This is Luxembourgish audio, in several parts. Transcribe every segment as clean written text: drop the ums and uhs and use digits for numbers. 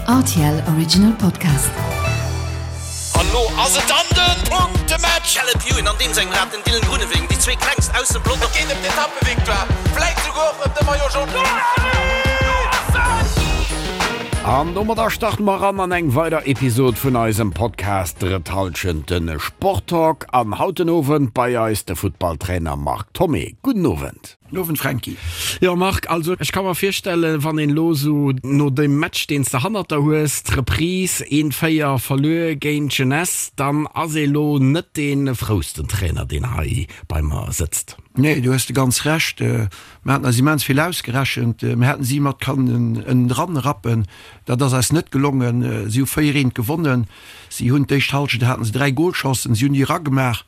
Rtl Original Podcast. An lo ass et dann den Punktematch! Caleb Ewan an deem sengem Rad den Dylan Groenewegen, déi zwee klengst aus dem Pelotong. Et geet ëm d'Etappevictoire, vläit souguer och ëm de Maillot Jaune. An domadder starte mer eran an eng weider Episod vun eisem Podcast Drëtt Hallschent, de Sporttalk. An haut den Owend bei eis de Futtballtrainer Marc Thomé. Gudden Owend. Guten Owend Franky. Jo Marc, also ech ka mer virstellen, wann een elo esou no deem Match deen s de hannert der hues, d'Reprise, een 4 verluer géint d'Jeunesse, dann ass ee lo net dee frousten Trainer deen hei bei mer sëtzt. Nee, do hues de ganz Recht. Mer haten eis immens vill ausgerechent. Mir hätten si mat kannen ënnendran rappen. Dat ass eis net gelongen. Si hu 4 eent gewonnen. Si hunn d'éischt Halschent haten se 3 Golchancen, si hunn déi eragemaach.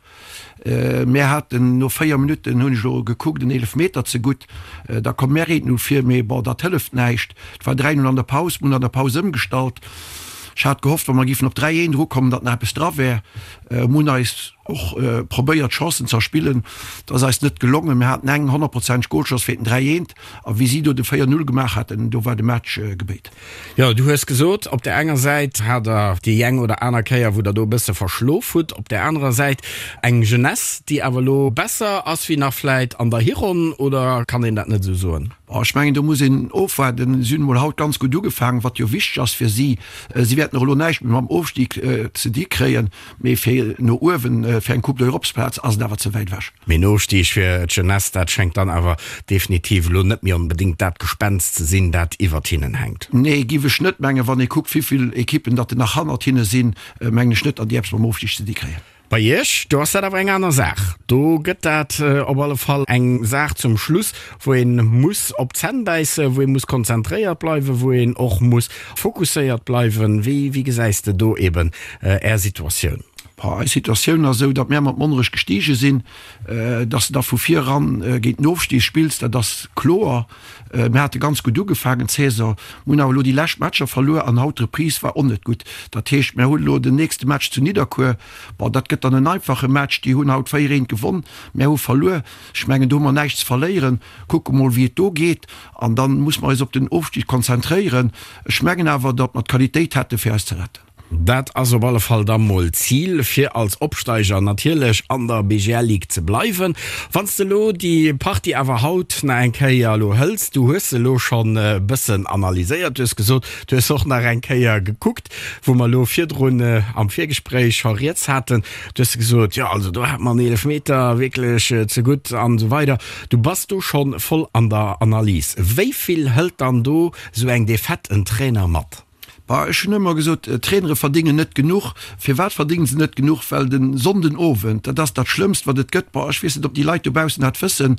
Mär haten no 4 Minutten, hunn ech elo gekuckt, en Eelefmeter zegutt. Da komm mär eent no vir, mee bon, dat hëlleft näischt. Et war 3, 0 an der Paus. Mir hunn an der Paus ëmgestallt. Ech hat gehofft, wa mer géifen op 3, 1 erukommen, datt nach eppes dra wär. Mir hunn eis och probéiert, Chancen ze erspillen. Dat ass eis net gelongen. Mir haten eng honnertprozenteg Golchance fir den 3, 1. A wéi si do de 4, 0 gemaach haten, do war de Match gebéit. Jo, du hues gesot, op där enger Säit hat der déi eng oder aner Kéier, wou der do e bësse verschlof hutt, op där anerer Säit eng Jeunesse, déi awer elo besser ass wéi nach vläit an der Hironn, oder kann een dat net esou soen? Bon, ech mengen, do muss een ofwaarden. Si hunn emol haut ganz gutt ugefaangen, wat jo wichteg ass fir si. Si wäerten och elo näischt méi mam Ofstig ze di kréien, mee fir no uewen, fir eng Coupe d'Europe-Plaz ass et awer ze wäit ewech. Mee en Ofstig fir d'Jeunesse, dat schéngt dann awer definitiv elo net méi onbedéngt dat Gespenst ze sinn, dat iwwert hinnen hänkt. Nee, giff ech net mengen. Wann ee kuckt, wéivill Ekippen datt nach hannert hinne sinn, mengen ech net, datt déi eppes mam Ofstig ze di kréien. Bei Iech, do ass dat awer eng aner Saach. Do gëtt dat op alle Fall eng Saach zum Schluss, wou ee muss op d'Zänn bäissen, wou ee muss konzentréiert bleiwen, wou een och muss fokusséiert bleiwen. Wéi gesäis de do eben Är Situatioun? Boah, eis Situatioun ass esou, datt mär mat Monnerech gestige sinn. Datt s de da vu vir eran géint den Ofstig spills, dat ass kloer. Mir hate ganz gutt ugefaangen d'Saison, mir hunn awer elo déi lescht Matcher verluer an haut d'Reprise war och net gutt. Dat heescht, mär hunn elo den nächste Match zu Nidderkuer. Bon, dat gëtt dann en einfache Match. Déi hunn haut 4, 1 gewonn, mär hu verluer. Ech mengen, do hu mer näischt ze verléieren. Kucke mol, wéi et do geet an dann muss mer eis op den Ofstig konzentréieren. Ech mengen awer, datt mer d'Qualitéit hätte fir eis ze retten. Dat ass op alle Fall da mol d'Zil, fir als Opsteiger natierlech an der BGL Ligue ze bleiwen. Wann s de elo déi Partie awer haut nach eng Kéier elo hëls, du hues se elo schonn e bëssen analyséiert, du hues gesot, du hues och nach eng Kéier gekuckt, wou mer elo virdrun am Virgespréich scho rieds haten, du hues gesot, jo also do hat mer en Eelefmeter wierklech ze gutt an esou weider. Du bass do schonn voll an der Analys. Wéi vill hëlt dann do esou eng Defaite en Trainer mat? Bah, ech hunn ëmmer gesot, Trainere verdéngen net genuch. Firwat verdéngen se net genuch? Well de Sonnden Owend, dat ass dat Schlëmmst, wat et gëtt. Bah, ech weess net, ob déi Leit dobaussen dat wëssen,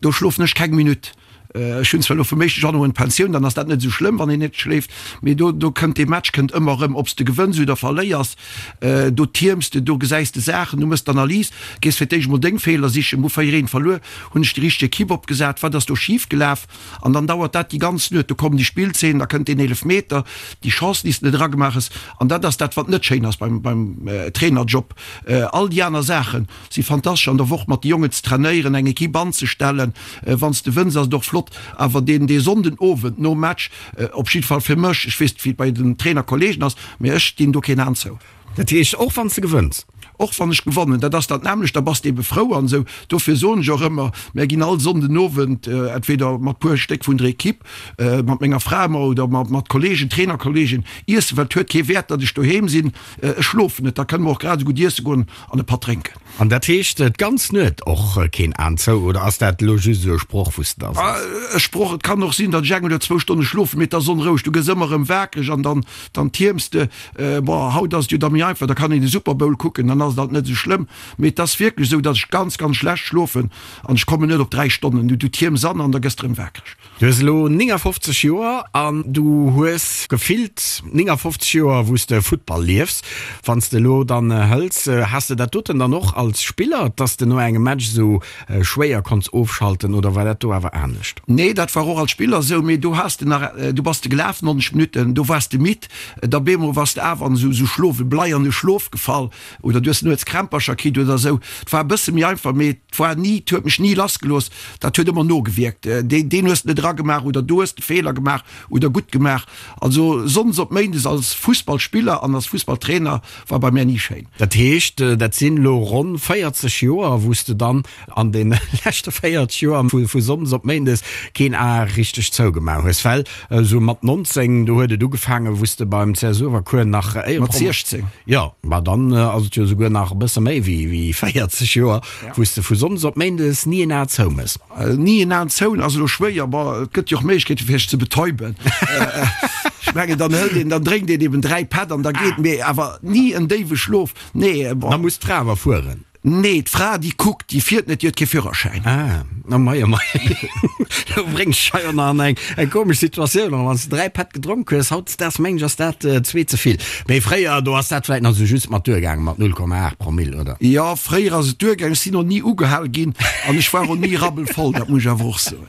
do schlofen ech keng Minutt. Ech hunn zwar elo vum éischte Januar un d'Pensioun, dann ass dat net esou schlëmm, wann een net schléift, mee do, do kënnt dee Match kënnt ëmmer erëm, ob s de gewënns oder verléiers, do tierms de, do gesäis de Saachen, du méchs d'Analys, gees fir d'éischt emol deng Feeler sichen, Hu 4, 1 verluer, hunn ech déi richteg Ekipp opgesat, wat ass do schif gelaf? An dann dauert dat déi ganz Nuet. Do kommen déi Spillzeenen, da kënnt deen Eelefmeter, déi Chance, déi s de net eragemaach hues. An dat ass dat, wat net schéin ass beim, beim Trainerjob. All déi aner Saache si fantastesch, an der Woch mat de Jongen ze trainéieren, eng Equipe anzestellen. Wann s de wënns, ass et och flott. Awer deen, dee Sonnden Owend nom Match, op jidde Fall fir mech, ech weess net, wéi et bei den Trainerkollegen ass, mee ech dinn do keen An zou. Dat heescht, och wann s de gewënns? Och wann ech gewonnen, dat ass dat nämmlecht, da bass de ebe frou an esou. Dofir soen ech och ëmmer, mär ginn all Sonnden Owend, entweder mat puer Stéck vun der Equipe, mat menger Fra ëmmer oder mat Kollegen, Trainerkollegen iessen, well et huet kee Wäert, datt ech doheem sinn, ech schlofen net, da kënne mer och grad esou gutt iesse goen an e Patt drénken. An dat heescht d'ganz Nuet och keen Aan zou, oder ass dat elo just esou e Sproch wou s de da sees? E Sproch, et kann och sinn, datt ech eng oder zwou Stonne schlofen, mee et ass onroueg, du gëss ëmmer erëm wakereg an dann, dann tierms de. Bon, haut ass et jo da méi einfach, da kann een de Super Bowl kucken, dann ass et alt net esou schlëmm. Mee et ass wierklech esou, datt ech ganz, ganz schlecht schlofen an ech kommen net op 3 Stonnen. Du, du tierms an an da gëss de erëm wakereg. Du hues elo 59 Joer an du hues gefillt 59 Joer wou s de Futtball liefs. Wann s de elo dann hëls, has de dat doten dann och als Spiller, dass de no engem Match esou schwéier konns ofschalten oder war dat do awer anescht? Nee, dat war och als Spiller esou, mee do has de nach, du bass de gelaf 90 Minutten, do waars de midd, da bemol waars de awer an esou Schlof, e bleierne Schlof gefall oder du hues. Du hues nuets Krämpercher kritt oder esou. Et war e bësse méi einfach, mee et war ni, et huet mech ni lassgelooss. Dat huet ëmmer nogewierkt. Deen, deen hues de net eragemaach oder do hues de Feeler gemaach oder gutt gemaach. Also sonndes op méindes als Fussballspiller an als Fussballtrainer war bei mär ni schéin. Dat heescht, dat sinn elo ronn 40 Joer, wou s de dann an deene leschte 40 Joer vu sonndes op méindes keen A richteg zougemaach hues. Well esou mat 19, do huet et ugefaangen, wou s de beim CS Uewerkuer nach Mat 16. Jo, ma dann ass et jo esouguer nach e bësse méi wéi 40 Joer, wou s de vu sonndes op méindes ni en A zoumëss. Ni en An zoun ass elo schwéier. Bon, et gëtt jo och Méiglechkeete fir sech ze betäuben. Ech mengen, dann hëlt een, dann drénkt een eben 3 Pätt an da geet. Mee awer ni en déiwe Schlof, nee. Bon. Da muss d'Fra awer fueren. Nee, d'Fra déi kuckt, déi fiert net, déi huet kee Führerschäin. Ah, oh mei, oh mei. Du bréngs dech hei och nach an eng, eng komesch Situatioun eran. Wann s de 3 Pätt gedronk hues, hautdesdaags mengen ech ass dat zwee ze vill. Mee fréier, do ass dat vläit nach esou just mat duergaangen, mat 0,8 Promill, oder? Jo, fréier ass et duergaangen. Ech sinn och ni ugehal ginn an ech war och ni rabbelvoll, dat muss ech awer och soen.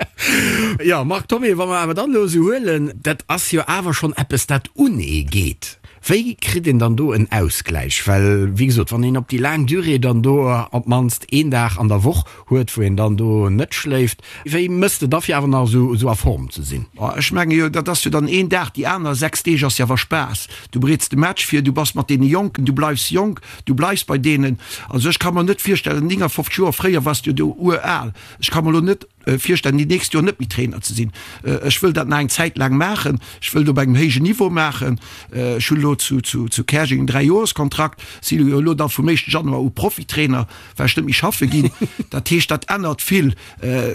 Jo, Marc Thomé, wa mer awer dann elo esou huelen, dat ass jo awer schonn eppes, dat un ee geet. Wéi kritt een dann do en Ausgläich? Well, wéi gesot, wann een op déi laang Durée dann do op d'mannst een Dag an der Woch huet, wou een dann do net schléift, wéi mëss de da fir awer nach esou a Form ze sinn? Ech menge jo, dat ass jo dann een Dag, déi aner 6 Deeg ass jo awer Spaass. Du bereets de Match vir, du bass mat deene Jonken, du bleifs jonk, du bleifs bei deenen. Also ech ka mer net virstellen, 59 Joer, fréier waars du jo do ural, ech ka mer elo net virstellen, déi nächst Joer net méi Trainer ze sinn. Ech wëll dat nach eng Zäit laang maachen, ech wëll et op engem héijen Niveau maachen. Ech hunn elo zu Käerjeng en Dräijoerskontrakt, si jo elo da vum éischte Januar u Profitrainer. Well ech net méi schaffe ginn. Dat heescht, dat ännert vill.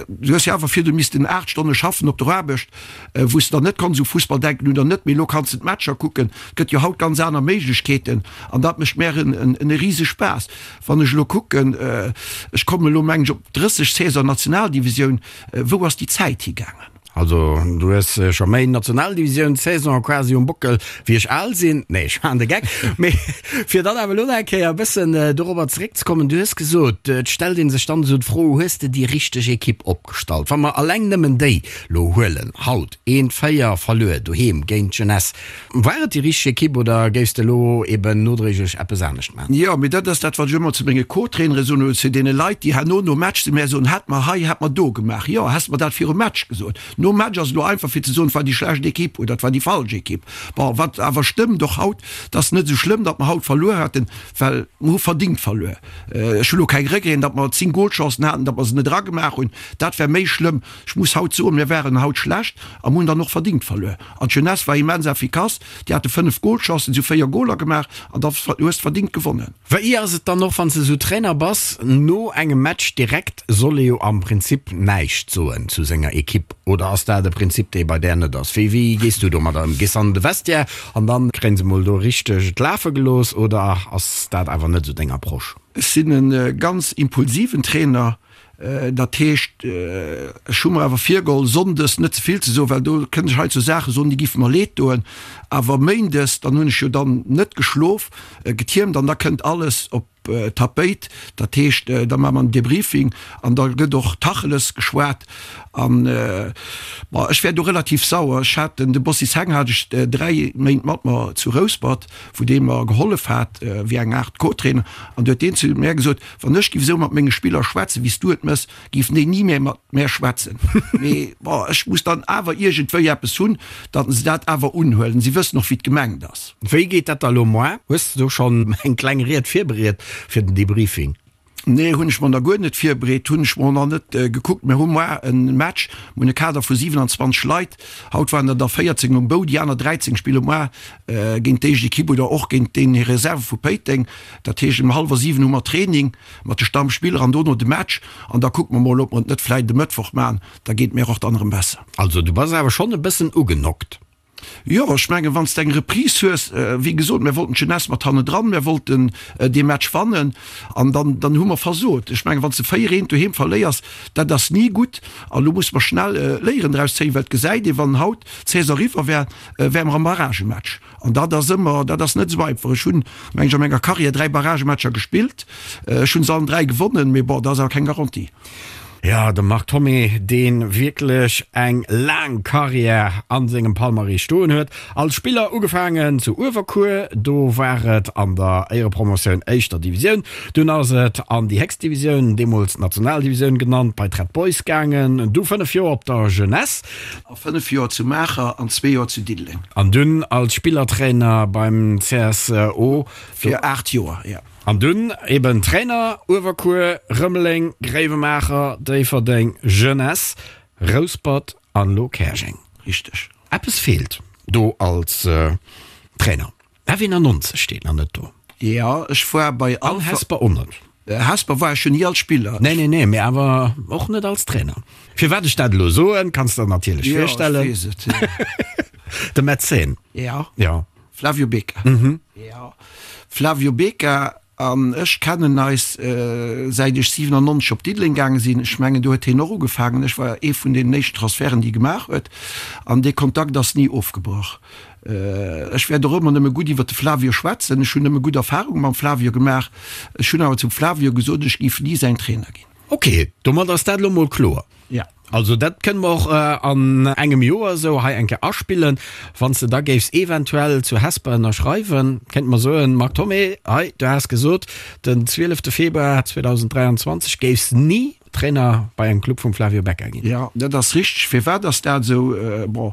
Du hues jo awer virdu missten 8 Stonne schaffen op der Aarbecht, wou s de dann net konns u Fussball denken oder net. Mee elo kanns de d'Matcher kucken. Et gëtt jo haut ganz aner Méiglechkeeten an dat mécht mär en rise Spaass. Wann ech elo kucken, ech kommen elo mengen ech op 30 Saison Nationaldivisioun, wou ass déi Zäit higaangen? Also du hues scho méi Nationaldivisioun-Saison quasi um Bockel wéi ech al sinn. Nee, ech maachen de Geck. Mee fir dann awer elo nach eng Kéier e bëssen dorobber zeréckzekommen, du hues gesot, et stellt ee sech dann esou d'Fro, hues de déi richteg Ekipp opgestallt? Wa mer alleng nëmmen déi lo huelen haut, eent 4 verluer doheem géint d'Jeunesse, War et déi richteg Ekipp oder géifs de elo eben nodréiglech eppes anescht maachen? Jo, mee dat ass dat, wat ech ëmmer zu menge Co-Trainere soen oder zu deene Leit, déi herno nom Match zu mär soen, Hätt mer hei, hätt mer do gemaach. Jo, häss mer dat virum Match gesot. Nom Match ass et elo einfach fir ze soen, et war déi schlecht Ekipp oder et war déi falsch Ekipp. Bon, wat awer stëmmt och haut, et ass net esou schlëmm, datt mer haut verluer haten, well mer hu verdingt verluer. Ech hu elo keng Regreten, datt mer 10 Golchancen haten, datt mer se net eragemaach hunn. Dat wär méi schlëmm. Ech muss haut soen, mir waren haut schlecht a mer hunn dann och verdingt verluer. An d'Jeunesse war immens efficace, déi hate 5 Golchancen, si hu 4 Goler gemaach an da hues de verdingt gewonnen. Wéi ass et dann och wann s de esou Trainer bass, no engem Match direkt soll ee jo am Prinzip näischt soen zu senger Ekipp, oder ass dat e Prinzip dee bei där net ass? Wéi wéi gees du domadder ëm? Gees an de Vestiaire an dann kréien se mol do richteg et lafe gelooss oder ass dat awer net esou deng Approche? Ech sinn e ganz impulsiven Trainer, Dat heescht, ech hu mer awer virgeholl, sonndes net ze vill ze soen, well do kënnt ech hei zu Saache soen, déi géife mer leed doen. Awer méindes, dann hunn ech jo dann net geschlof, getiermt an da kënnt alles op d'Tapéit. Dat heescht, da maache mer en Debriefing an da gëtt och Tacheles geschwat. An, bon, ech wär do relativ sauer. Ech hat den, de Bossi Seng hat ech 3 Méint mat mer zu Rouspert, wou dee mer gehollef hat wéi eng Aart Co-Trainer, an du huet deen zu mär gesot, Wann ech giff esou mat menge Spiller schwätzen, wéi s du et mëss, giffen déi ni méi mat mär schwätzen. Mee bon, ech muss dann awer iergendwéi eppes hunn, datt se dat awer unhuelen. Si wëssen och, wéi et gemengt ass. Wéi geet dat da lo moar? Hues de do schonn eng kleng Ried virbereet fir den Debriefing? Nee, hunn ech mer nach guer net virbereet, hunn ech mer och nach net gekuckt. Mir hu moar e Match, mir hunn e Kader vu 27 Leit. Haut waren der der 14 um Bou, déi aner 13 spille moar géint d'éischt Ekipp oder och géint déi Reserve vu Péiteng. Dat heescht ëm hallwer 7 hu mer Training mat de Stammspiller an dono de Match an da kucke mer mol, ob mer et net vläit e Mëttwoch maachen, da geet et mir och dann erëm besser. Also du bass awer schonn e bëssen ugenockt. Jo, ech mengen, wann s de eng Reprise hues, wéi gesot, mir wollten d'Jeunesse mat hannendran, mir wollten dee Match wannen an dann, dann hu mer versot. Ech mengen, wann s de 4, 1 doheem verléiers, dat ass ni gutt an elo musse mer schnell Léieren draus zéien, well et gesäit ee, wann haut d'Saison eriwwer wär, wäre mer am Barragematch. An dat ass ëmmer, dat ass net esou einfach. Ech hunn, meng ech, a menger Karriär 3 Barragematcher gespillt. Ech hunn se allen 3 gewonnen, mee bon, dat ass awer keng Garantie. Jo, de Marc Thomé, dee wierklech eng laang Karriär a sengem Palmarès stoen huet. Als Spiller ugefaangen zu Uewerkuer, do war et an der Éierepromotioun éischter Divisioun. Dunn ass et an déi héchst Divisioun, deemools Nationaldivisioun genannt, bei d'Red Boys gaangen. Du 5 Joer op der Jeunesse. A 5 Joer zu Maacher an zwee Joer zu Diddeleng. An dunn als Spillertrainer beim CSO. Fir 8 Joer, jo. An dunn eben Trainer, Uewerkuer, Rëmeleng, Gréiwemaacher, Déifferdeng, Jeunesse, Rouspert an elo Käerjeng. Richteg. Eppes feelt do als Trainer. F91 steet nach net do. Jo, ech war bei An Hesper och net. Hesper war ech jo ni als Spiller. Nee, nee, nee, mee awer och net als Trainer. Firwat ech dat elo soen, kanns de der natierlech virstellen. Jo, ech weess et. De Mäzen. Jo. Jo. Flavio Becca. Jo, Flavio Becca an ech kennen eis säit ech 97 op Diddeleng gaange sinn. Ech mengen do huet hien och ugefaangen. Ech war ee vun deenen éischten Transferten déi e gemaach huet an dee Kontakt ass ni ofgebrach. Ech wäert och ëmmer nëmme gutt iwwer de Flavio schwätzen. Ech hunn nëmme gutt Erfarunge mam Flavio gemaach. Ech hunn awer zum Flavio gesot, ech géif ni säin Trainer ginn. Ok, domat ass dat elo mol kloer. Ja. Also dat kënne mer och an engem Joer esou hei eng Kéier aspillen. Wann s de da géifs eventuell zu Hesper ënnerschreiwen, kéinte mer soen, Marc Thomé, hei, du has gesot, den 12 Februar 2023 géifs ni Trainer bei engem Club vum Flavio Becca ginn. Jo, dat ass richteg. Firwat ass dat esou? Bon,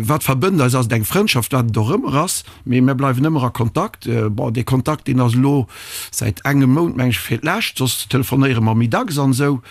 wat verbënnt eis, ass et eng Frëndschaft, wat et och ëmmer ass. Mee mir bleiwen ëmmer a Kontakt. Bon, dee Kontakt, deen ass elo säit engem Mount, meng ech, fir d'lescht, soss telefonéiere mer méi dacks an esou.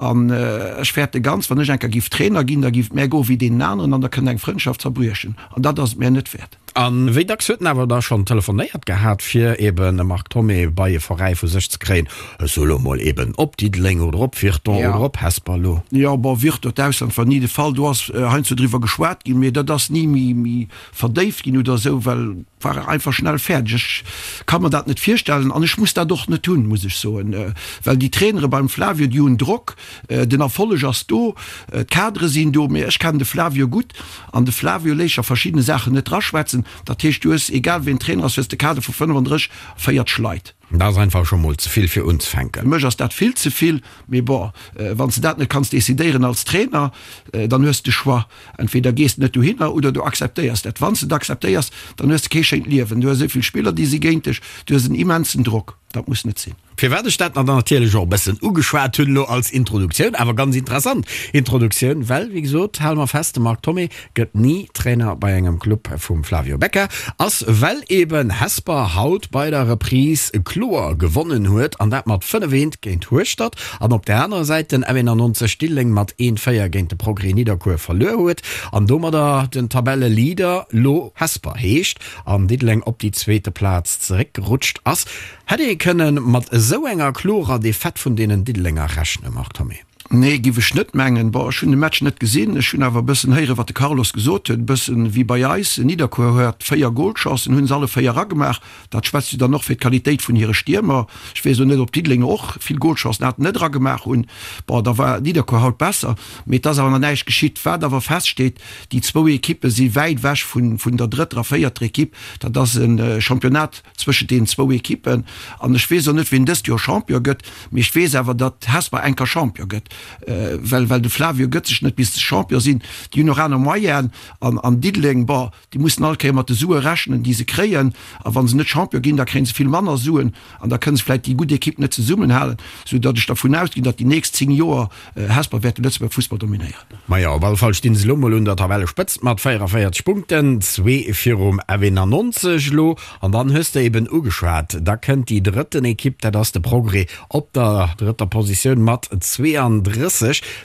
An ech fäerte ganz, wann ech eng Kéier giff Trainer ginn, da giff et mär goe wéi deenen aneren an da kënnt eng Frëndschaft zerbriechen. An dat ass et mär net wäert. A wéi dacks huet en awer da schonn telefonéiert gehat, fir eben e Marc Thomé bei e Veräi vu sech ze kréien? Ech soe lo mol eben op Diddeleng oder op Virton oder op Hesper lo. Jo, bon, Virton, d'Ausland war ni de Fall. Do ass heiansdo driwwer geschwat ginn, mee dat ass ni méi verdéift ginn oder esou, well war einfach schnell fäerdeg. Ech ka mer dat net virstellen an ech muss dat och net hunn, muss ech soen, well déi Trainere beim Flavio, déi hunn Drock, den Erfolleg ass do, d'Kadere sinn do, mee ech kennen de Flavio gutt an de Flavio léisst sech a verschiddene Saachen net draschwätzen. Dat heescht, du hues, egal wien Trainer ass, hues de Kader vu 35, 40 Leit. Dat ass einfach scho mol ze vill fir unzefänken. Fir mech ass dat vill ze vill, mee bon, wann s de dat net kanns decidéieren als Trainer, dann hues de Choix, entweder gees de net dohinner oder du akzeptéiers dat. Wann s de et akzeptéiers, dann hues de kee schéint Liewen, du hues esou vill Spiller, déi si géint dech, du hues en immensen Drock, dat muss net sinn. Firwat ech dat natierlech och e bëssen ugeschwat hunn elo als Introduktioun, awer ganz interessant Introduktioun, well, wéi gesot, hale mer fest, de Marc Thomé gëtt ni Trainer bei engem Club vum Flavio Becca, ass well eben Hesper haut bei der Reprise kloer gewonnen huet, an dat mat 5, 1 géint Hueschtert, an op der anerer Säit den F91 Diddeleng mat 1, 4 géint de Progrès Nidderkuer verluer huet an domadder den Tabelleleader lo Hesper heescht an Diddeleng op déi zweete Plaz zeréckgerutscht ass. Hätt ee kënne mat esou enger klorer Defaite vun deenen Diddelenger rechnen, Marc Thomé? Nee, giff ech net mengen. Bon, ech hunn de Match net gesinn, ech hunn awer e bëssen héieren, wat de Carlos gesot huet. E bëssen wéi bei eis, Nidderkuer huet 4 Golchancen, hunn se alle 4 eragemaach. Dat schwätzt jo dann och fir d'Qualitéit vun hire Stiermer. Ech weess elo net, ob Diddelenger och vill Golchancen haten, net eragemaach hunn. Bon, da war Nidderkuer haut besser, mee et ass awer nach näischt geschitt. Wat awer feststeet, déi zwou Ekippe si wäit ewech vun der drëtter a véierter Ekipp. Dat ass e Championnat zwëschent deenen zwou Ekippen. An ech weess och net, wien dëst Joer Champion gëtt, mee ech weess awer, datt Hesper enker Champion gëtt, well well de Flavio gëtt sech net bis se Champion sinn. Déi hunn och aner Moyenen. An an Diddeleng, bon, déi mussen all Kéier mat de Sue rechnen, déi se kréien. A wa se net Champion ginn, da kréie se vill manner Suen an da kënne se vläicht déi gutt Ekipp net zesummenhalen, soudatt ech dervun ausginn, datt déi nächst 10 Joer Hesper wäert de Lëtzebuerger Fussball dominéieren. Majo, op alle Fall stinn se elo mol un der Tabellespëtzt mat 44 Punkten, zwee virum F91 elo. An dann hues de eben ugeschwat, da kënnt déi drëtten Ekipp, dat ass de Progrès op der drëtter Positioun mat 32.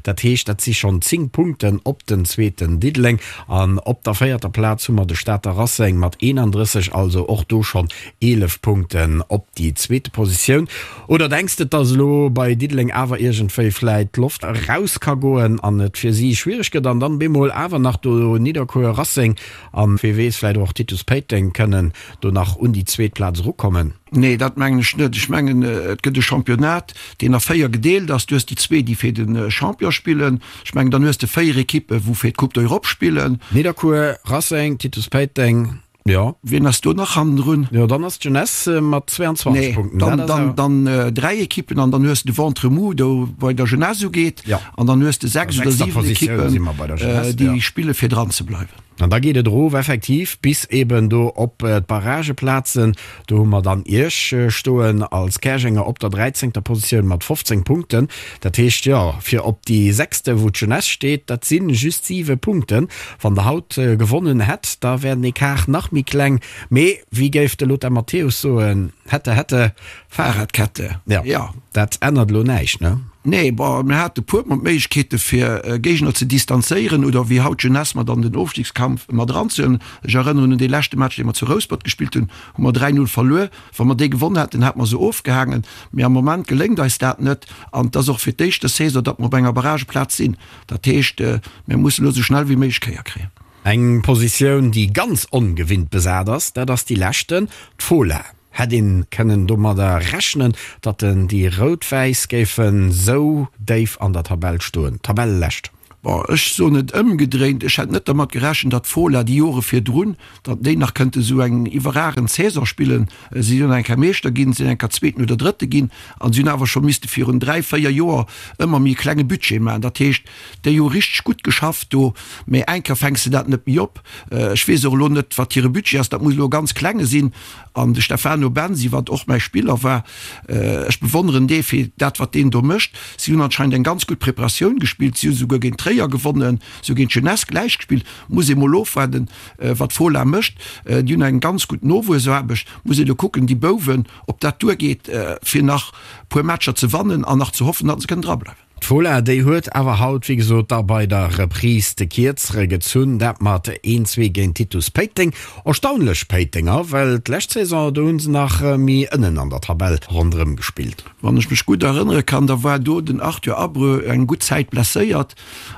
Dat heescht, dat si schonn 10 Punkten op den zweeten Diddeleng. An op der véierter Plaz hu mer de Stater Racing mat 31, also och do schonn 11 Punkten op déi zweete Positioun. Oder denks de, dass elo bei Diddeleng awer iergendwéi vläit d'Loft eraus ka goen an et fir si schwiereg gëtt an dann bemol awer nach do Nidderkuer, Racing an wee weess vläit och Titus Péiteng kënnen do nach un déi zweet Plaz erukommen? Nee, dat mengen ech net. Ech mengen, et gëtt e Championnat, deen a 4 gedeelt ass. Du hues déi zwee, déi fir de Champion spillen. Ech mengen, dann hues de 4 Ekippen, wou fir d'Coupe d'Europe spillen. Nidderkuer, Racing, Titus Péiteng. Jo. Wien ass do nach hannendrun? Jo, dann ass d'Jeunesse mat 22 Nee, Punkten. dann, Dat ass dann, awer. dann dräi Ekippen an dann hues de de Ventre mou do bei der Jeunesse ugeet. Ja. An dann hues de 6 An oder sechster 7 Positioun si mer bei der Ekippen, Jeunesse, déi ja. spille fir dran ze bleiwen. An da geet et erof effektiv bis eben do op d'Barrageplazen. Do hu mer dann Iech stoen als Käerjenger op der dräizéngter Positioun mat 15 Punkten. Dat heescht, jo, fir op déi sechste, wou d'Jeunesse steet, dat si just siwe Punkten. Wann Der haut gewonnen hätt, da wär den Ecart nach méi kleng. Mee wéi géif de Lothar Matthäus soen, Hätte, hätte. Fahrradkette, jo. Dat ännert elo näischt, ne? Nee, bon, mir hate puer mol d'Méiglechkeete fir Géigner ze distanzéieren oder wéi haut d'Jeunesse mat an den Ofstigskampf mat eranzehuelen. Ech erënneren un dee leschte Match, dee mer zu Rouspert gespillt hunn, hu mer 3, 0 verluer. Wa mer dee gewonn hätten, hätte mer se ofgehaangen. Mee am Moment geléngt eis dat net an et ass och fir d'éischt des Saison, datt mer op enger Barrageplaz sinn. Dat heescht, mir mussen elo esou schnell wéi méiglech Kéier kréien. Eng Positioun, déi ganz ongewinnt besat ass, dat ass déi leschten, d'Fola. Hätt een kënnen domadder rechnen, datt den déi Rout-Wäiss géifen sou déif an der Tabell stoen? Tabellelescht. Bon, ech soen et ëmgedréint, ech hätt net dermat gerechent, datt d'Fola déi Jore virdrun, datt déi nach kënnte sou eng iwwerragend Saison spillen. Si hunn eng Kéier Meeschter ginn, sinn eng Kéier Zweeten oder Drëtte ginn an si hunn awer scho misste virun dräi, véier Joer ëmmer méi e klenge Budget maachen. Dat heescht, déi hu richteg gutt geschafft do, mä eng Kéier fänks de dat net méi op. Ech weess och elo net, wat hire Budget ass, dat muss elo e ganz klenge sinn. An de Stefano Bensi, wat och mäi Spiller war, ech bewonneren dee fir dat, wat deen do mécht. Si hunn anscheinend eng ganz gutt Preparatioun gespillt, si hu souguer géint Tréier gewonnen, si hu géint d'Jeunesse gläich gespillt. Muss ee mol ofwaarden, wat d'Fola mécht. Déi hunn eng ganz gutt Nowuessaarbecht. Muss ee lo kucken, déi Bouwen, ob dat duergeet, fir nach puer Matcher ze wannen an nach ze hoffen, datt se kënnen drableiwen. D'Fola, déi huet awer haut, wéi gesot, da bei der Reprise de Kierzere gezunn, dat mat een, zwee géint Titus Péiteng. Erstaunlech Péitenger, well d'lescht Saison, do hu se nach méi ënnen an der Tabell ronderëm gespillt. Wann ech mech gutt erënnere kann, da war do den Arthur Abreu eng gutt Zäit blesséiert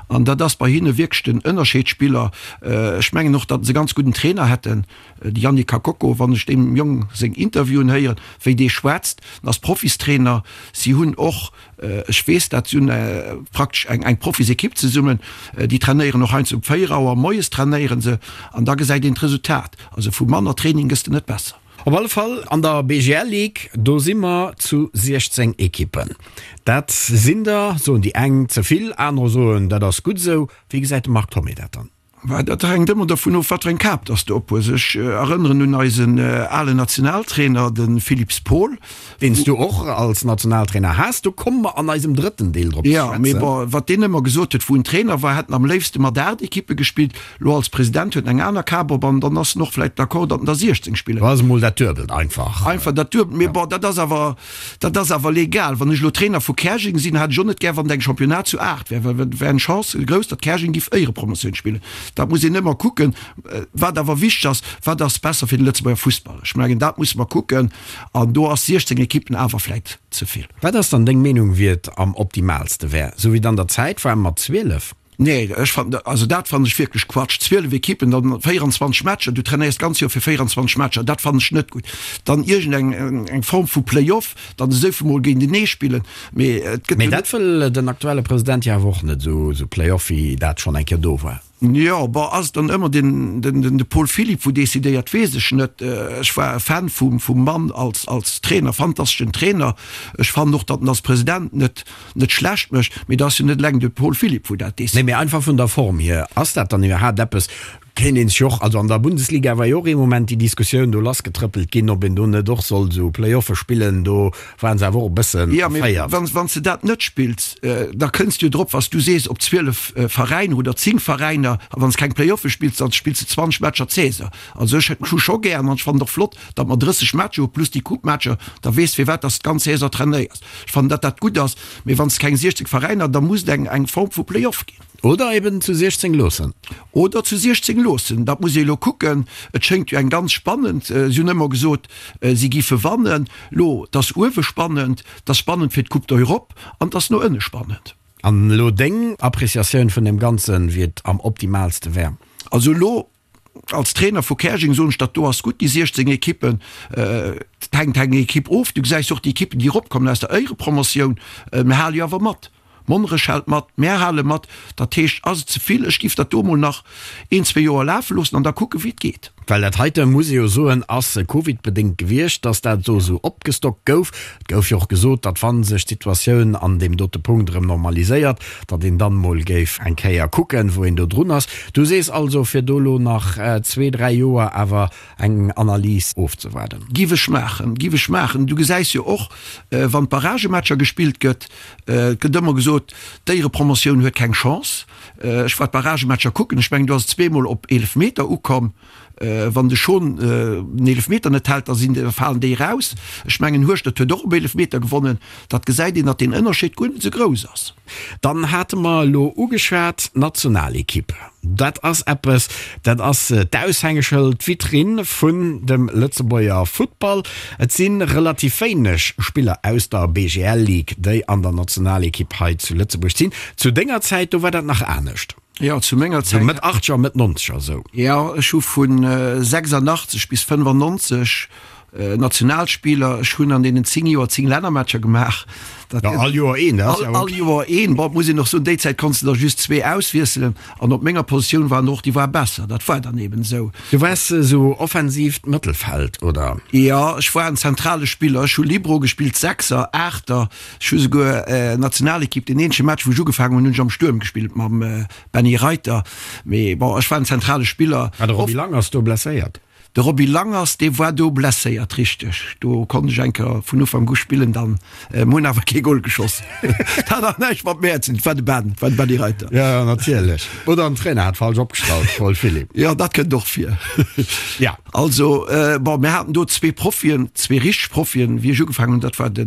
an dat ass bei hinne wierklech den Ënnerscheedspiller. Ech mengen och, datt se e ganz gudden Trainer hätten, de Yannick Kakoko. Wann ech deem Jong seng Interviewen héieren, wéi dee schwätzt, en ass Profistrainer. Si hunn och Ech weess dat, si hunn praktesch eng Profisekipp zesummen, déi trainéieren och heiansdo um 4 Auer moies trainéiere se an da gesäit een d'Resultat. Also vu manner Training gëss de net besser. Op alle Fall an der BGL Ligue, do si mer zu 16 Ekippen. Dat sinn der, soen déi eng, ze vill, anerer soen, dat ass gutt esou. Wéi gesäit de Marc Thomé dat dann? Mä dat hänkt ëmmer dervun of, wat fir eng Kap dass de ophues. Ech erënneren un eisen alen Nationaltrainer, de Philippe Paul. Deen s du och als Nationaltrainer has. Do komme mer an eisem drëtten Deel drop ze Jo, mee schwätzen. bon, wat deen ëmmer gesot huet, wou en Trainer war, hätt en am léifste mat 8 Ekippe gespillt. Lo als President huet en eng aner Kap op an dann ass en och vläicht d'accord, datt en der 16 spillen. Do ass emol dat Duebelt einfach. Einfach dat Duebelt. Mee bon, dat ass awer, Dat ass awer legal. Wann ech elo Trainer vu Käerjeng sinn, hätt ech och net gär, wann et eng Championnat zu 8 wär, well et wär eng Chance grouss, datt Käerjeng giff Éierepromotioun spillen. Dat muss een ëmmer kucken. Wat awer wichteg ass, wat ass besser fir de Lëtzebuerger Fussball? Ech mengen, dat musse mer kucken. An do ass 16 Ekippen awer vläit ze vill. Wat ass dann deng Meenung, wéi et am optimaalste wär? Sou wéi et an der Zäit war mat 12? Nee, ech fannen, also dat fannen ech wierklech Quatsch. 12 Ekippen, dann 24 Matcher, du trainéiers d'ganz Joer fir 24 Matcher, dat fannen ech net gutt. Dann iergend eng eng Form vu Play-off, dann esou vill mol géintenee spillen, mee et gëtt Mee jo net. Dat wëll den aktuelle President jo awer och net, esou esou Play-off wéi dat schonn eng Kéier do war. Jo, bon, ass et dann ëmmer den den den de Paul Philipp wou decidéiert, weess ech net. Ech war e Fan vum vum Mann als als Trainer, fantasteschen Trainer. Ech fannen och, datt en als President net net schlecht mécht, mee et ass jo net eleng de Paul Philipp wou dat Nee, décidéiert. mee einfach vun der Form hier, ass dat dann iwwerhaapt eppes, kéint een sech och, also an der Bundesliga war jo och ee Moment déi Diskussioun do lassgetrëppelt ginn, ob een do net och soll esou Play-offe spillen, do waren se awer och e bëssen Jo, mee erféiert. wann, wann s de dat net spills, da kënns de jo drop, wa s du sees, op 12 Veräiner oder 10 Veräiner, a wann s keng Play-offe spills, da spills de 20 Matcher d'Saison. Also ech hu scho gär an ech fannen et och flott, datt mer 30 Matcher hu plus déi Coupe-Matcher, da weess firwat datt s d'ganz Saison trainéiers. Ech fannen, datt dat gutt ass, mee wann s de keng 16 Veräiner, da muss et eng eng Form vu Play-off ginn. Oder eben zu 16 loossen. Oder zu 16 loossen, dat muss ee elo kucken. Et schéngt jo eng ganz spannend, si hunn ëmmer gesot, si giffe wannen. Lo, et ass uewe spannend, et ass spannend fir d'Coupe d'Europe an et ass no ënne spannend. An elo deng Appreciatioun vun deem Ganzen, wéi et am optimaalste wär? Also elo Als Trainer vu Käerjeng soen ech, dat do ass gutt, déi 16 Ekippen. Et hänkt eng Ekipp of. Du gesäis och déi Ekippen, déi eropkommen aus der Éierepromotioun. Mir hale jo awer mat. Monnerech hält mat, mär hale mat. Dat heescht, ass et ze vill? Ech géif dat do emol nach een, zwee Joer lafe loossen an da kucken, wéi et geet. Well dat heite, muss ee jo soen, ass covidbedéngt gewiescht, datt dat do esou opgestockt gouf. Et gouf jo och gesot, datt wa sech d'Situatioun an deem dote Punkt erëm normaliséiert, datt een dann emol géif eng Kéier kucken, wou een do drun ass. Du sees also, fir do elo nach zwee, dräi Joer awer eng Analys ofzewaarden. Giff ech maachen, giff ech maachen. Du gesäis jo och, wann d'Barragematcher gespillt gëtt, et gëtt ëmmer gesot, d'Éierepromotioun huet keng Chance. Ech war d'Barragematcher kucken, ech mengen do ass et zweemol op Eelefmeter ukomm. Wann de Schon den Eelefmeter net hält, da sinn, da falen déi eraus. Ech mengen Hueschtert huet och op Eelefmeter gewonnen. Dat gesäit een, datt deen Ënnerscheed guer net esou grouss ass. Dann hate mer elo ugeschwat d'Nationalekipp. Dat ass eppes, dat ass d'Aushängeschëld, d'Vitrinn vun dem Lëtzebuerger Futtball. Et si relativ wéineg Spiller aus der BGL Ligue, déi an der Nationalekipp hei zu Lëtzebuerg sinn. Zu denger Zäit, do war dat nach anescht. Jo, zu menger Zäit. Sou Mëtt Achtzeger, Mëtt Nonzeger esou. Jo, ech hu vu 86 bis 95 Nationalspiller. Ech hunn an deenen 10 Joer 10 Lännermatcher gemaach. Dat ja, all Joer een, dat ass ja all Joer een. Bon, muss een och soen, déi Zäit konns de der just zwee auswiesselen an op menger Positioun waren och déi war besser. Dat war dann eben esou. Du waars esou offensiivt Mëttelfeld, oder? Jo, ech war en zentrale Spiller. Ech hu Libero gespillt, Sechser, Aachter. Ech hu souguer Nationalekipp, deen eenzege Match wou ech ugefaangen hunn, hunn ech am Stuerm gespillt mam Benny Reiter. Mee bon, ech war en zentrale Spiller. War de Roby Langers do blesséiert? De Roby Langers, dee war do blesséiert, richteg. Do konnt ech eng Kéier vun Ufank u spillen dann. Mir hunn awer kee Gol geschoss. Dat hat awer näischt mat mär ze dinn, et war de Ben, et war de Benny Reiter. Jo, jo, natierlech. Oder den Trainer hat falsch opgestallt, Paul Philipp. Jo, dat kënnt och vir. Ja. Also, bon, mir haten do zwee Profien, zwee richteg Profien, wéi ech ugefaangen hunn, dat war de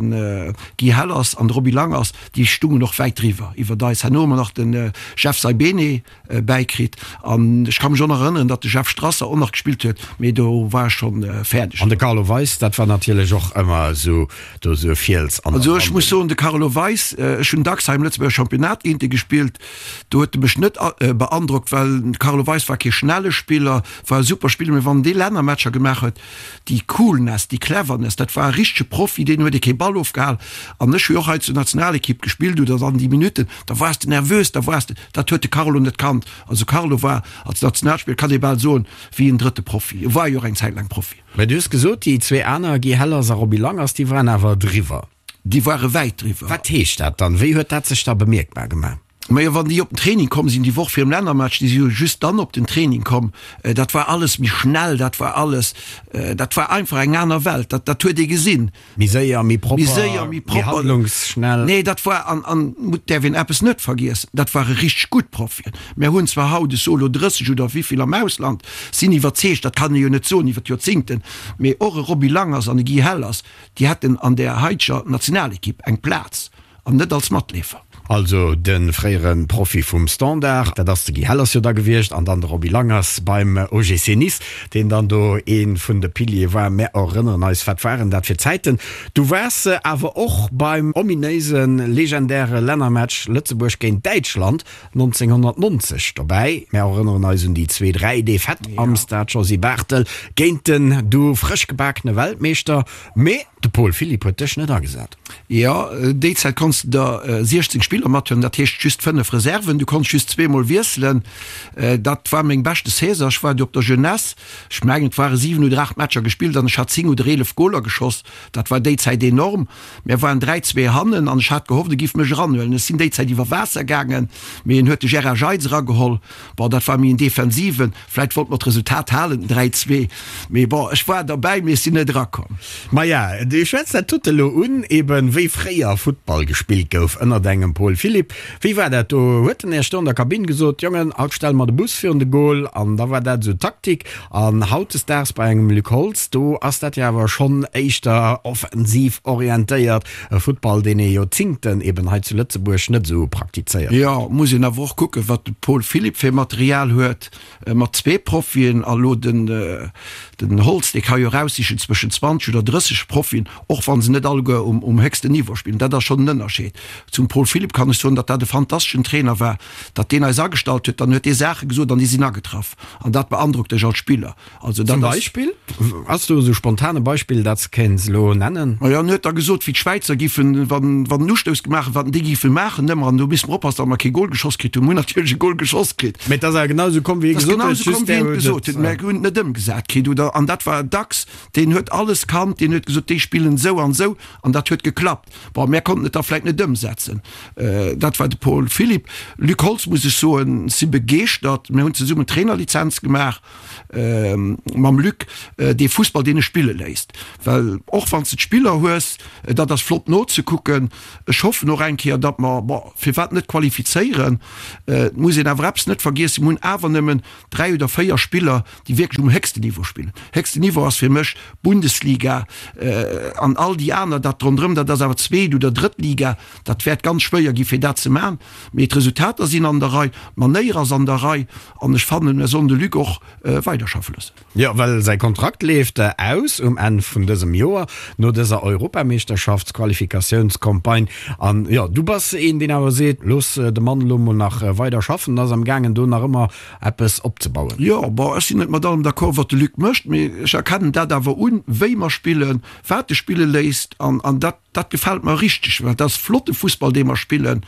Guy Hellers an de Roby Langers, déi stungen och wäit driwwer, iwwert eis. Herno hu mer nach de Jeff Saibene bäikritt an ech ka mech och nach erënneren, datt de Jeff Strasser och nach gespillt huet, mee do war ech schonn fäerdeg. An de Carlo Weis, dat war natierlech och ëmmer esou do esou e Fiels an der Also ech muss soen, de Carlo Weis, ech hunn dacks hei am Lëtzebuerger Championnat géint e gespillt, do huet e mech net beandrockt, well de Carlo Weis war kee schnelle Spiller, war e super Spiller, mee wann dee Lännermatcher gemaach huet, déi Coolness, déi Cleverness, dat war e richtege Profi, deen huet ee kee Ball ofgehal. An ech hu jo och hei zur Nationalekipp gespillt oder dann déi Minutten, da waars de nervös, da waars de, dat huet de Carlo net kannt. Also Carlo war als Nationalspiller, kann ee bal soen, wéi en drëtte Profi. E war jo och eng Zäit laang Profi. Mä du hues gesot, déi zwee aner, Guy Hellers a Roby Langers, déi waren awer driwwer. Déi ware wäit driwwer. Wat heescht dat dann? Wéi huet dat sech da bemierkbar gemaach? Majo, wann déi op den Training komm sinn, déi Woch virum Lännermatch, déi si jo just dann op den Training komm, dat war alles méi schnell, dat war alles, dat war einfach eng aner Welt, dat, dat huet ee gesinn. Méi séier, méi propper, méi séier, méi propper, handlungsschnell. Nee, dat war, an, an et däerf een eppes net vergiessen, dat ware richteg gutt Profien. Mär hunn zwar haut, ech soe lo 30 oder wéivill am Ausland, sinn iwwerzeegt, dat kann ee jo net soen iwwer d'Joerzingten, mee och e Roby Langers an e Guy Hellers, déi hätten an där haiteger Nationalekipp eng Plaz. An net als Matleefer. Also de fréiere Profi vum Standard, dat ass de Guy Hellers jo da gewiescht, an dann de Roby Langers beim OGC Nice, deen dann do ee vun de Piliere war. Mär erënneren eis, wat waren dat fir Zäiten. Du waars awer och beim ominéise legendäre Lännermatch Lëtzebuerg géint Däitschland 1990 dobäi. Mär erënneren eis un déi zwee 3 Defaite am Stade Josy Barthel géint den du frëschgebakene Weltmeeschter. Mee de Paul Philipp huet dech net agesat. Jo, déi Zäit konns de der 16 Spiller mathuelen, dat heescht just 5 Reserven. Du konns just zweemol wiesselen. Dat war meng beschte Saison. Ech war du op der Jeunesse, ech mengen et ware 7 oder 8 Matcher gespillt an ech hat 10 oder 11 Goler geschoss. Dat war déi Zäit enorm. Mär waren 3, 2 hannen an ech hat gehofft, e giff mech eranhuelen. Ech sinn déi Zäit iwwer Waasser gaangen, mee en huet de Gérard Jeitz erageholl. Bon, dat war méi en Defensiven. Vläit wollt mer d'Resultat halen, den 3, 2. Mee bon, ech war derbäi, mee ech sinn net erakomm. Maja, du schwätz dat dote elo un, eben wéi fréier Futtball gespillt gouf ënnert engem Paul Philipp. Wéi war dat do? Huet en Iech do an der Kabinn gesot, Jongen, haut stelle mer de Bus virun de Goal an da war dat esou d'Taktik? An hautdesdaags bei engem Luc Holtz, do ass dat jo awer schonn éischter offensiv orientéiert, e Futtball, deen ee Joerzingten eben hei zu Lëtzebuerg net esou praktizéiert huet. Jo, muss een awer och kucken, wat de Paul Philipp fir Material huet, mat zwee Profien a lo den. Den Holtz, dee ka jo eraussichen zwëschen 20 oder 30 Profien, och wa se net alleguer um héchsten Niveau spillen. Dat ass schonn en Ënnerscheed. Zum Paul Philipp kann ech soen, datt dat e fantasteschen Trainer war, datt deen eis agestallt huet. Dann huet dee Saache gesot an déi sinn agetraff. An dat beandrockt dech als Spiller. Also dat Zum Beispill? Ass do esou spontan e Beispill, dat s kéints elo nennen? Majo, en huet da gesot, wéi d'Schwäizer giffen, wann en Ustouss gemaach huet, wat déi giffe maachen ëmmer. An do misste mer oppassen, datt mer kee Gol geschoss kritt hunn. Mer hunn natierlech e Gol geschoss kritt. Mee et ass awer genau esou komm, wéi hie gesot huet, just där huet et. Mer hunn et net ëmgesat kritt, oder? An dat war dacks, deen huet alles kannt, deen huet gesot, déi spillen esou an esou, an dat huet geklappt. Bon, mär konnten et da vläicht net ëmsetzen. Dat war de Paul Philipp. Luc Holtz, muss ech soen, si begeeschtert. Mir hunn zesummen d'Trainerlizenz gemaach mam Luc, dee Fussball, deen e spille léisst. Well och wann s de d'Spiller hues, dat ass flott nozekucken. Ech hoffen och eng Kéier, datt mer, bon, firwat net qualifizéieren? Et muss een awer eppes net vergiessen, Mir hunn awer nëmmen 3 oder 4 Spiller, déi wierklech um héchsten Niveau spillen. Héchsten Niveau ass fir mech Bundesliga an all déi aner, dat ronderëm, dat ass awer zweet oder drëtt Liga. Dat wäert ganz schwéier gi fir dat ze man. Mee d'Resultater sinn an der Rei, d'Manéier ass an der Rei an ech fannen, mir sollen de Luc och weiderschaffe loossen. Jo, well säi Kontrakt leeft aus um Enn vun dësem Joer, no dëser Europameeschterschaftsqualifikatiounscampagne. An jo, du bass een, deen awer seet, looss de Mann elo mol nach weider schaffen, en ass am gaangen do nach ëmmer eppes opzebauen. Jo, bon, ech sinn net mat allem d'accord, wat de Luc mécht, mee ech erkennen dat awer un, wéi mer spillen, wat e spille léisst an dat, Dat gefält mer richteg, well dat ass flotte Fussball, dee mer spillen,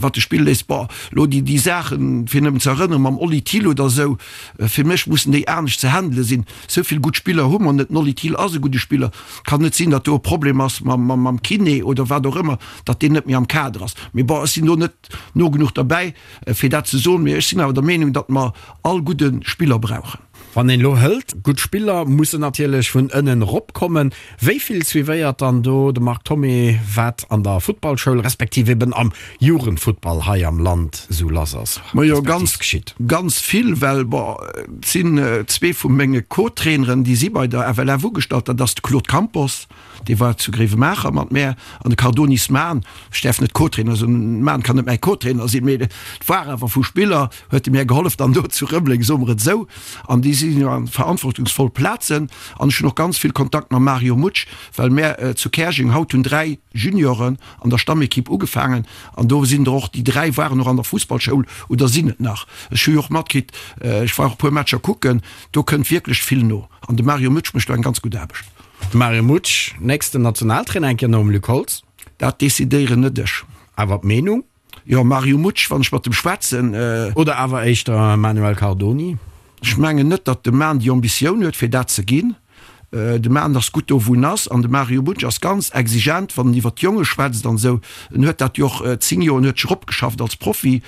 wat de Spill léisst. Bon, elo déi, déi Saachen, fir nëmmen ze erënneren, mam Oli Thill oder esou, fir mech mussen déi anescht ze handele sinn. Esou vill gutt Spiller hu mer net. Den Oli Thill ass e gudde Spiller. Et kann net sinn, datt do e Problem ass mam, mam, mam Kiné oder wat och ëmmer, datt deen net méi am Kader ass. Mee bon, ech sinn do net no genuch derbäi, fir dat ze soen. Mee ech sinn awer der Meenung, datt mer all gudde Spiller brauchen. Wann een elo hëlt, gutt Spiller mussen natierlech vun ënnen erop kommen. Wéi vill suivéiert dann do de Marc Thomé, wat an der Futtballschoul respektiv eben am Jugendfuttball hei am Land esou lass ass, Majo, respektiv geschitt? Ganz vill, well bon, et sinn zwee vu menge Co-Traineren, déi si bei der FLF ugestallt, dat ass de Claude Campos, dee war zu Gréiwemaacher mat mär, an de Cardonis Mahn, ech däerf net Co-Trainer soen, Mahn kann net mäi Co-Trainer sinn, mee et war awer vu Spiller, huet e mär gehollef dann do zu Rëmeleng, soe mer et esou, an déi sinn jo an verantwortungsvoll Plazen. An ech hunn och ganz vill Kontakt mam Mario Mutsch, well mär zu Käerjeng haut hunn 3 Junioren an der Stammekipp ugefaangen an do sinn der och, déi 3 waren och an der Fussballschoul oder sinn et nach. Ech hu jo och matkritt, ech war och e puer Matcher kucken, do kënnt wierklech vill no an de Mario Mutsch mécht do eng ganz gutt Aarbecht. De Mario Mutsch, nächsten Nationaltrainer eng Kéier nom Luc Holtz? Dat decidéieren net ech. Awer d'Meenung? Jo, Mario Mutsch, wann ech mat em schwätzen. Oder awer éischter Manuel Cardoni? Ech mengen net, datt de Man déi Ambitioun huet, fir dat ze ginn. De Man ass gutt do, wou en ass. An de Mario Mutsch ass ganz exigent, wann en iwwer d'Jonge schwätzt an esou. En huet dat jo och 10 Joer, en huet sech eropgeschafft als Profi.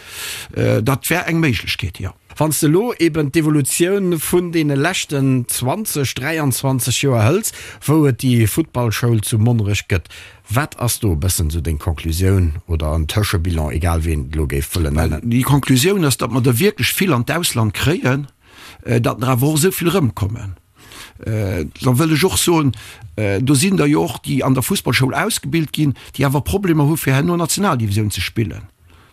Dat wär eng Méiglechkeet, jo. Wann s de elo eben d'Evolutioun vun deene leschten 20, 23 Joer hëls, wou et déi Futtballschoul zu Monnerech gëtt, wat ass do e bëssen esou deng Conclusioun oder en Tëschebilan, egal wéi een et elo géif wëllen nennen? Déi Conclusioun ass, datt mer der wierklech vill an d'Ausland kréien, datt der awer och esou vill erëmkommen. Da wëll ech och soen, do sinn der jo och, déi an der Fussballschoul ausgebilt ginn, déi awer Problemer hu fir herno Nationaldivisioun ze spillen.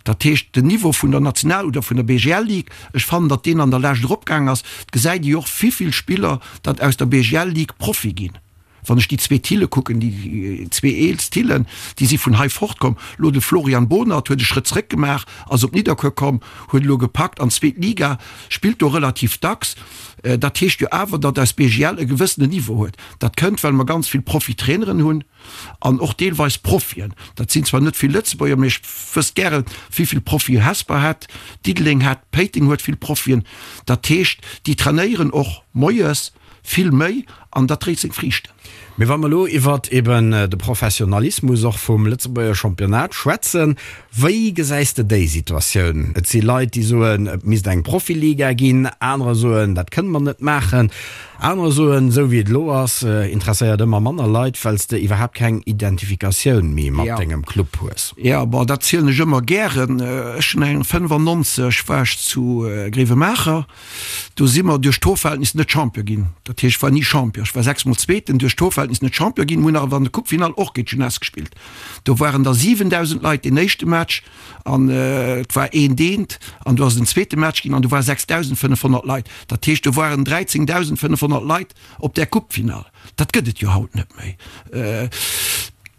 Dat heescht, den Niveau vun der National oder vun der BGL-Ligue, ech fannen, datt deen an der Lescht eropgaang ass. Et gesäit ee jo och, wivill Spiller datt aus der BGL-Ligue Profi ginn. Wann ech déi zwee Thille kucken, déi zwee eelst Thillen, déi si vun hei fortkomm. Elo de Florian Bohnert huet e Schrëtt zréck gemaach, ass op Nidderkuer komm, huet elo gepackt an d'zweet Liga, spillt do relativ dacks. Dat heescht jo awer, datt eis BGL e gewëssenen Niveau huet. Dat kënnt, well mer ganz vill Profitraineren hunn an och deelweis Profien. Dat sinn zwar net vill Lëtzebuerger, mee ech wësst gären, wéi vill Profie Hesper hätt, Diddeleng hätt, Péiteng huet vill Profien. Dat heescht, déi trainéieren och moies vill méi an dat dréit seng Friichten. Mee wa mer elo iwwert eben de Professionalismus och vum Lëtzebuerger Championnat schwätzen, wéi gesäis de déi Situatioun? Et si Leit, déi soen, et misst eng Profiliga ginn, anerer soen, dat kënne mer net maachen, anerer soen, esou wéi et elo ass, interesséiert ëmmer manner Leit, well s de iwwerhaapt keng Identifikatioun méi mat dengem Club hues. Jo, bon, dat zielen ech ëmmer gären. Ech hunn eng 95 war ech zu Gréiwemaacher. Do si mer duerch d'Torverhältnis net Champion ginn. Dat heescht, ech war ni Champion. Ech war sechsmol Zweeten, duerch d'Torverhältnis net Champion ginn. Mir hunn awer an der Coupe-Finall och géint d'Jeunesse gespillt. Do waren da 7.000 Leit deen éischte Match an et war eent eent an do ass et en zweete Match ginn an do ware 6.500 Leit. Dat heescht, do waren 13.500 Leit op där Coupe-Finall. Dat gëtt et jo haut net méi.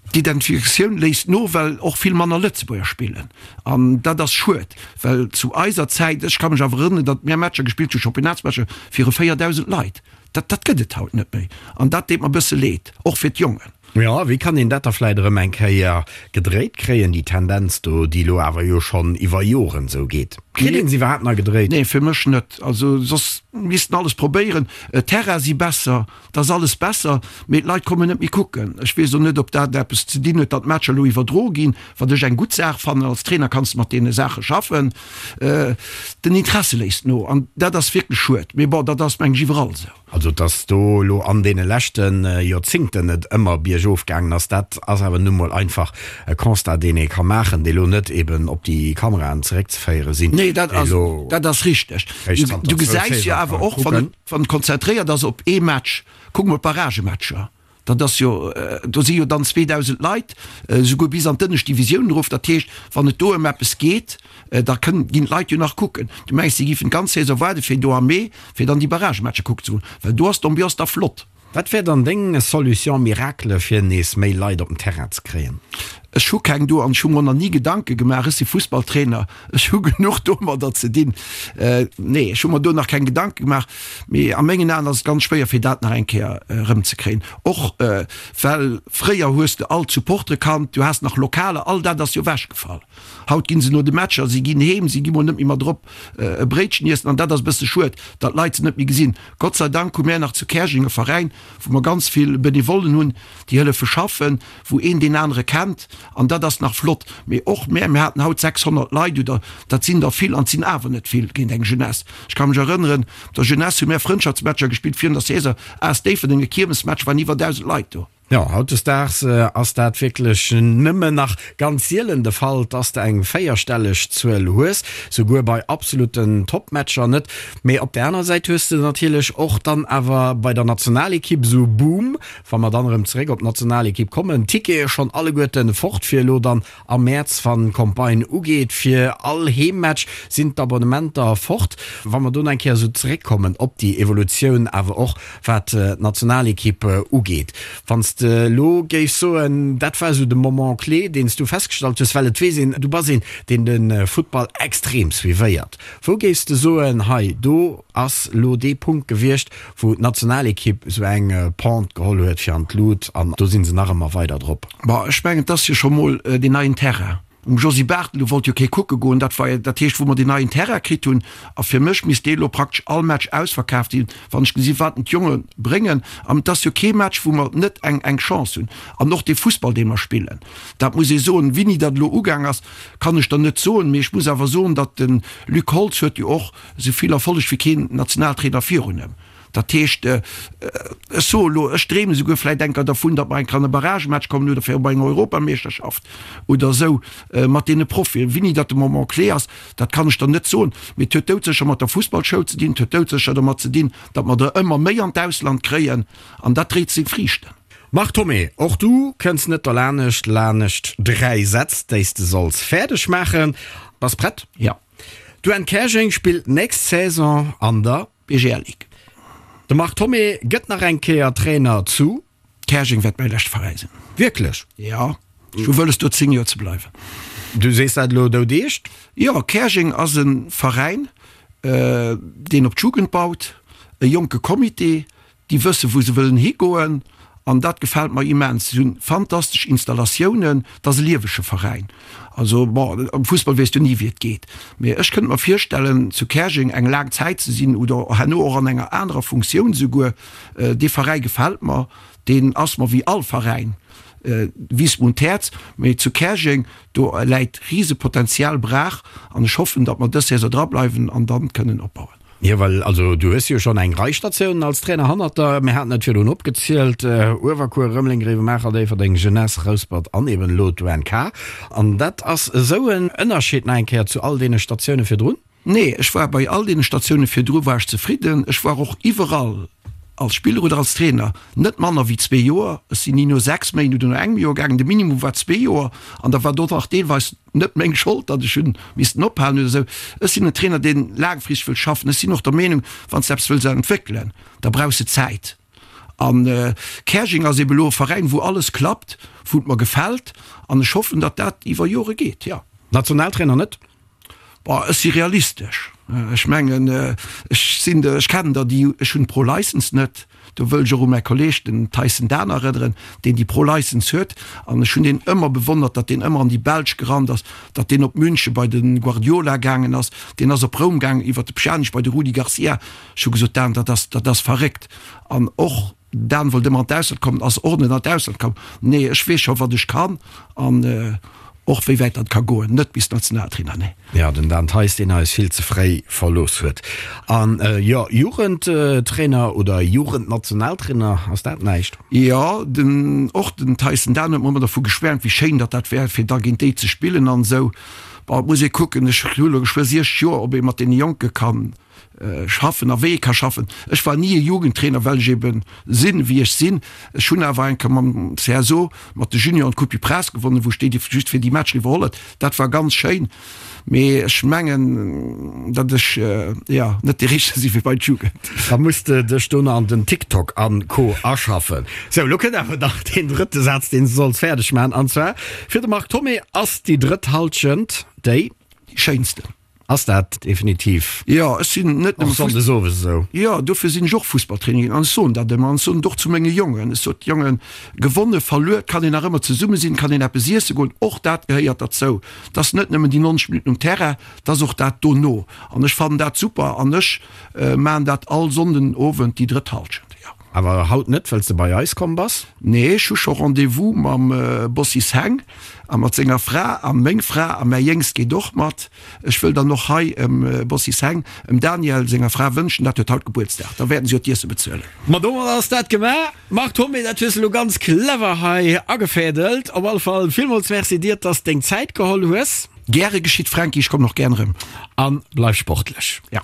D'Identifikatioun léisst no, well och vill manner Lëtzebuerger spillen. An dat ass schued, well zu eiser Zäit, ech ka mech awer erënneren, datt mir Matcher gespillt hu, Championnatsmatcher viru 4.000 Leit. Dat, dat gëtt et haut net méi. An dat deet mer e bësse leed, och fir d'Jongen. Jo, wéi kann een dat da vläit erëm eng Kéier gedréit kréien, déi Tendenz do, déi elo awer jo schonn iwwer Joren esou geet? Kritt een se iwwerhaapt nach gedréit? Nee, fir mech net. Also soss misst en alles probéieren. D'Terraine si besser, 't ass alles besser, mee d'Leit kommen net méi kucken. Ech weess och net, ob dat eppes ze dinn huet, datt d'Matcher elo iwwerdroe ginn, wat ech eng gutt Saach fannen. Als Trainer kanns de mat deene Saache schaffen. Den Interesse léisst no an dat ass wierklech schued. Mee bon, dat ass meng ech iwwerall esou. Also, datt do elo an deene leschte Joerzingten et ëmmer biergof gaangen ass, dat ass awer nu mol einfach e Constat, deen ee ka maachen, dee lo net eben op déi Kameraen zeréckzeféiere sinn. Nee, dat ass, dat ass richteg. Du gesäis jo awer och, wann et. Wann et konzentréiert ass op ee Match, kuck mol d'Barragematcher, dat ass jo, do si jo dann 2.000 Leit, esouguer bis an d'ënnescht Divisioun erof. Dat heescht, wann et do ëm eppes geet, da kënnen, ginn d'Leit jo nach kucken. Du mengs, si giffen d'ganz Saison waarde fir do am Mee, fir dann déi Barragematcher kucken ze goen, well do ass d'Ambiance da flott. Wat wär dann deng Solution miracle fir nees méi Leit op den Terrain ze kréien? Ech hu keng do an ech hu mer nach ni Gedanke gemaach. Ech si Fussballtrainer, ech hu genuch domadder ze dinn. Nee, ech hu mer do nach keng Gedanke gemaach. Mee a mengen Aen ass et ganz schwéier fir dat nach eng Kéier erëmzekréien. Och well fréier hues de all d'Supportere kannt, du has nach Lokaler, all dat ass jo ewechgefall. Haut ginn se no de Matcher, si ginn heem, si gi mol net méi mat erop e Bréitchen iessen an dat ass e bësse schued, datt d'Leit se net méi gesinn. Gott sei Dank hu mär nach zu Käerjeng e Veräin, wou mer ganz vill Benevollen hunn, déi hëllefe schaffen, wou een deen anere kennt an dat ass nach flott. Mee och mär, mir haten haut 600 Leit oder dat sinn der vill an et sinn awer net vill géint eng Jeunesse. Ech ka mech erënneren, op der Jeunesse hu mär Frëndschaftsmatcher gespillt virun der Saison, AS Déifferdeng, e Kiermesmatch, waren iwwer 1.000 Leit do. Jo, hautdesdaags ass dat wierklech nëmmen nach ganz sielen de Fall, dass de eng véierstelleg Zuel hues, souguer bei absoluten Topmatcher net. Mee op der aner Säit hues de natierlech och dann awer bei der Nationalekipp esou Boom, wa mer dann erëm zeréck op d'Nationalekipp kommen, d'Tickete schonn alleguerten fort fir elo dann Am Mäerz, wann d'Campagne ugeet fir all Heemmatch, sinn d'Abonnementer fort. Wa mer do nach eng Kéier esou zeréckkommen op déi Evolutioun, awer och wat d'Nationalekipp ugeet. Wann s de elo géifs soen, dat war esou de Moment clé, deen s du festgestallt hues, well et weess een, du bass een, deen de Futtball extrem suivéiert. Wou géifs de soen, hei do ass elo dee Punkt gewiescht, wou d'Nationalekipp esou eng Pente geholl huet fir an d'Lut an do si se nach ëmmer weider drop. Bon, ech mengen, et ass jo scho mol deen neien Terrain um Josy Barthel, do wollt jo kee kucke goen. Dat war jo, dat heescht, wou mer deen neien Terrain kritt hunn. A fir mech misst dee elo praktesch all Match ausverkaaft sinn, wann ech gesi wat d'Jonge bréngen. An et ass jo kee Match, wou mer net eng, eng Chance hunn. An och dee Fussball, dee mer spillen, dat muss ee soen. Wéini dat elo ugaang ass, kann ech der net soen. Mee ech muss awer soen, datt de Luc Holtz huet jo och esou vill Erfolleg wéi keen Nationaltrainer virun em. Dat heescht, ech soe elo, ech dreemen esouguer vläicht enker dervun, datt mer enker an e Barragematch kommen oder fir op eng Europameeschterschaft oder esou mat deene Profien. Wéini dat de Moment clé ass, dat kann ech der net soen. Mee et huet doudsécher mat der Fussballschoul ze dinn, et huet doudsécher dermat ze dinn, datt mer der ëmmer méi an d'Ausland kréien an dat dréit seng Friichten. Marc Thomé, och du kënns net derlanescht lanescht 3 Sätz, déi s de solls fäerdeg maachen. Bass prett? Jo. D'UN Käerjeng spillt nächst Saison an der. BGL Ligue. De Marc Thomé gëtt nach eng Kéier Trainer zu. Käerjeng wäert mäi leschte Veräi sinn. Wierklech? Jo, ech hu wëlles do 10 Joer ze bleiwen. Du sees dat elo doudeescht? Jo, Käerjeng ass e Veräin, deen op d'Jugend baut, e jonke Comité, Déi wëssen, wou se wëllen higoen an dat gefält mer immens. Si hunn fantastesch Installatiounen, et ass e liewege Veräin. Also bon, am Fussball weess du ni, wéi et geet, mee ech kënnt mer virstellen, zu Käerjeng eng laang Zäit ze sinn oder herno och an enger anerer Funktioun esouguer. Dee Veräi gefält mer, deen ass mer wéi all Veräin, wiisst mer un d'Häerz. Mee zu Käerjeng, do läit Risepotenzial brach an ech hoffen, datt mer dës Saison drableiwen an dann kënnen opbauen. Jo, well also du hues jo schonn eng Rei Statiounen als Trainer hannert der. Mir haten et virdrun opgezielt, Uewerkuer, Rëmeleng, Gréiwemaacher, Déifferdeng, Jeunesse, Rouspert an eben elo d'UNK. An dat ass esou en Ënnerscheed nach eng Kéier zu all deene Statioune virdrun? Nee, ech war bei all deene Statioune virdru war ech zefridden. Ech war och iwwerall. Als Spiller oder als Trainer net manner wéi zwee Joer. Ech sinn ni no 6 Méint oder no engem Joer gaangen. De Minimum war zwee Joer an da war do nach deelweis net meng Schold, datt ech hunn missten ophalen oder esou. Ech sinn en Trainer, deen laangfristeg wëll schaffen. Ech sinn och der Meenung, wann s de eppes wëlls entwéckelen, da brauchs de Zäit. An Käerjeng ass ebe elo e Veräin, wou alles klappt, wou et mer gefält an ech hoffen, datt dat iwwer Jore geet, jo. Nationaltrainer net? Bon, ech si realistesch. Ech mengen, ech sinn der, ech kennen der déi, ech hunn d'Pro License net. Do wëll ech och u mäi Kolleeg, den Tyson Dahn erënneren, deen déi Pro License huet. An ech hunn deen ëmmer bewonnert, datt deen ëmmer an déi Belsch gerannt ass, datt deen op München bei de Guardiola gaangen ass, deen ass op Roum gaangen iwwert de Pjanic bei de Rudi Garcia. Ech hu gesot, Dan, dat ass, dat ass verréckt. An och Dan wollt ëmmer an d'Ausland kommen, ass och net an d'Ausland komm. Nee, ech weess scho wat ech kann an och wéi wäit dat ka goen. Net bis Nationaltrainer, nee. Jo, den Dan Theis, deen eis vill ze fréi verlooss huet. An jo, Jugendtrainer oder Jugendnationaltrainer, ass dat näischt? Jo, den, och den Theis, den Dan huet mer ëmmer dervu geschwäermt, wéi schéin datt dat wär, fir da géint déi ze spillen an esou. Bon, et muss ee kucken, ech hu lo geschwë 60 Joer, ob ee mat deene Jonke kann schaffen a wéi ee ka schaffen. Ech war ni e Jugendtrainer, well ech eben sinn, wéi ech sinn. Ech hunn awer eng Kéier mam CSO, mat de Junioren d'Coupe du Prince gewonnen, wou ech déi just fir déi Matcher iwwerholl huet. Dat war ganz schéin, mee ech mengen, datt ech, jo, net dee Richtege si fir bei d'Jugend. Da muss de dech do nach an den TikTok a Co. Aschaffen. Sou, lo kënnt awer nach deen drëtte Saz, deen s de solls fäerdeg maachen. An zwar, Fir de Marc Thomé ass déi drëtt Hallschent déi. Schéinsten. Ass dat definitiv Jo, ech sinn net nëmme och sonndes owes esou? Jo, dofir sinn ech och Fussballtrainer ginn an ech soen dat ëmmer an ech soen et och zu menge Jongen. Ech sot, Jongen, gewonne, verluer, et kann een nach ëmmer zesumme sinn, et kann een eppes iesse goen, och dat gehéiert derzou. Et ass net nëmmen déi 90 Minutten um Terrain, et ass och dat dono an ech fannen dat super an ech maachen dat all Sonnden Owend déi drëtt Hallschent, jo. Awer haut net, well s de bei eis komm bass? Nee, ech hu scho Rendez-vous mam Bossis Heng a mat senger Fra a meng Fra a mäi Jéngst geet och mat. Ech wëll dann och hei em Bossis Heng, em Daniel senger Fra wënschen, dat huet haut Gebuertsdag, da wäerten si jo d'Iesse bezuelen. Ma domat ass dat gemaach. Marc Thomé, dat hues de lo ganz clever hei agefädelt. Op alle Fall villmools Merci dir, dass deng Zäit geholl hues. Gäre geschitt, Franky, ech kommen och gären erëm. An bleif sportlech. Ja.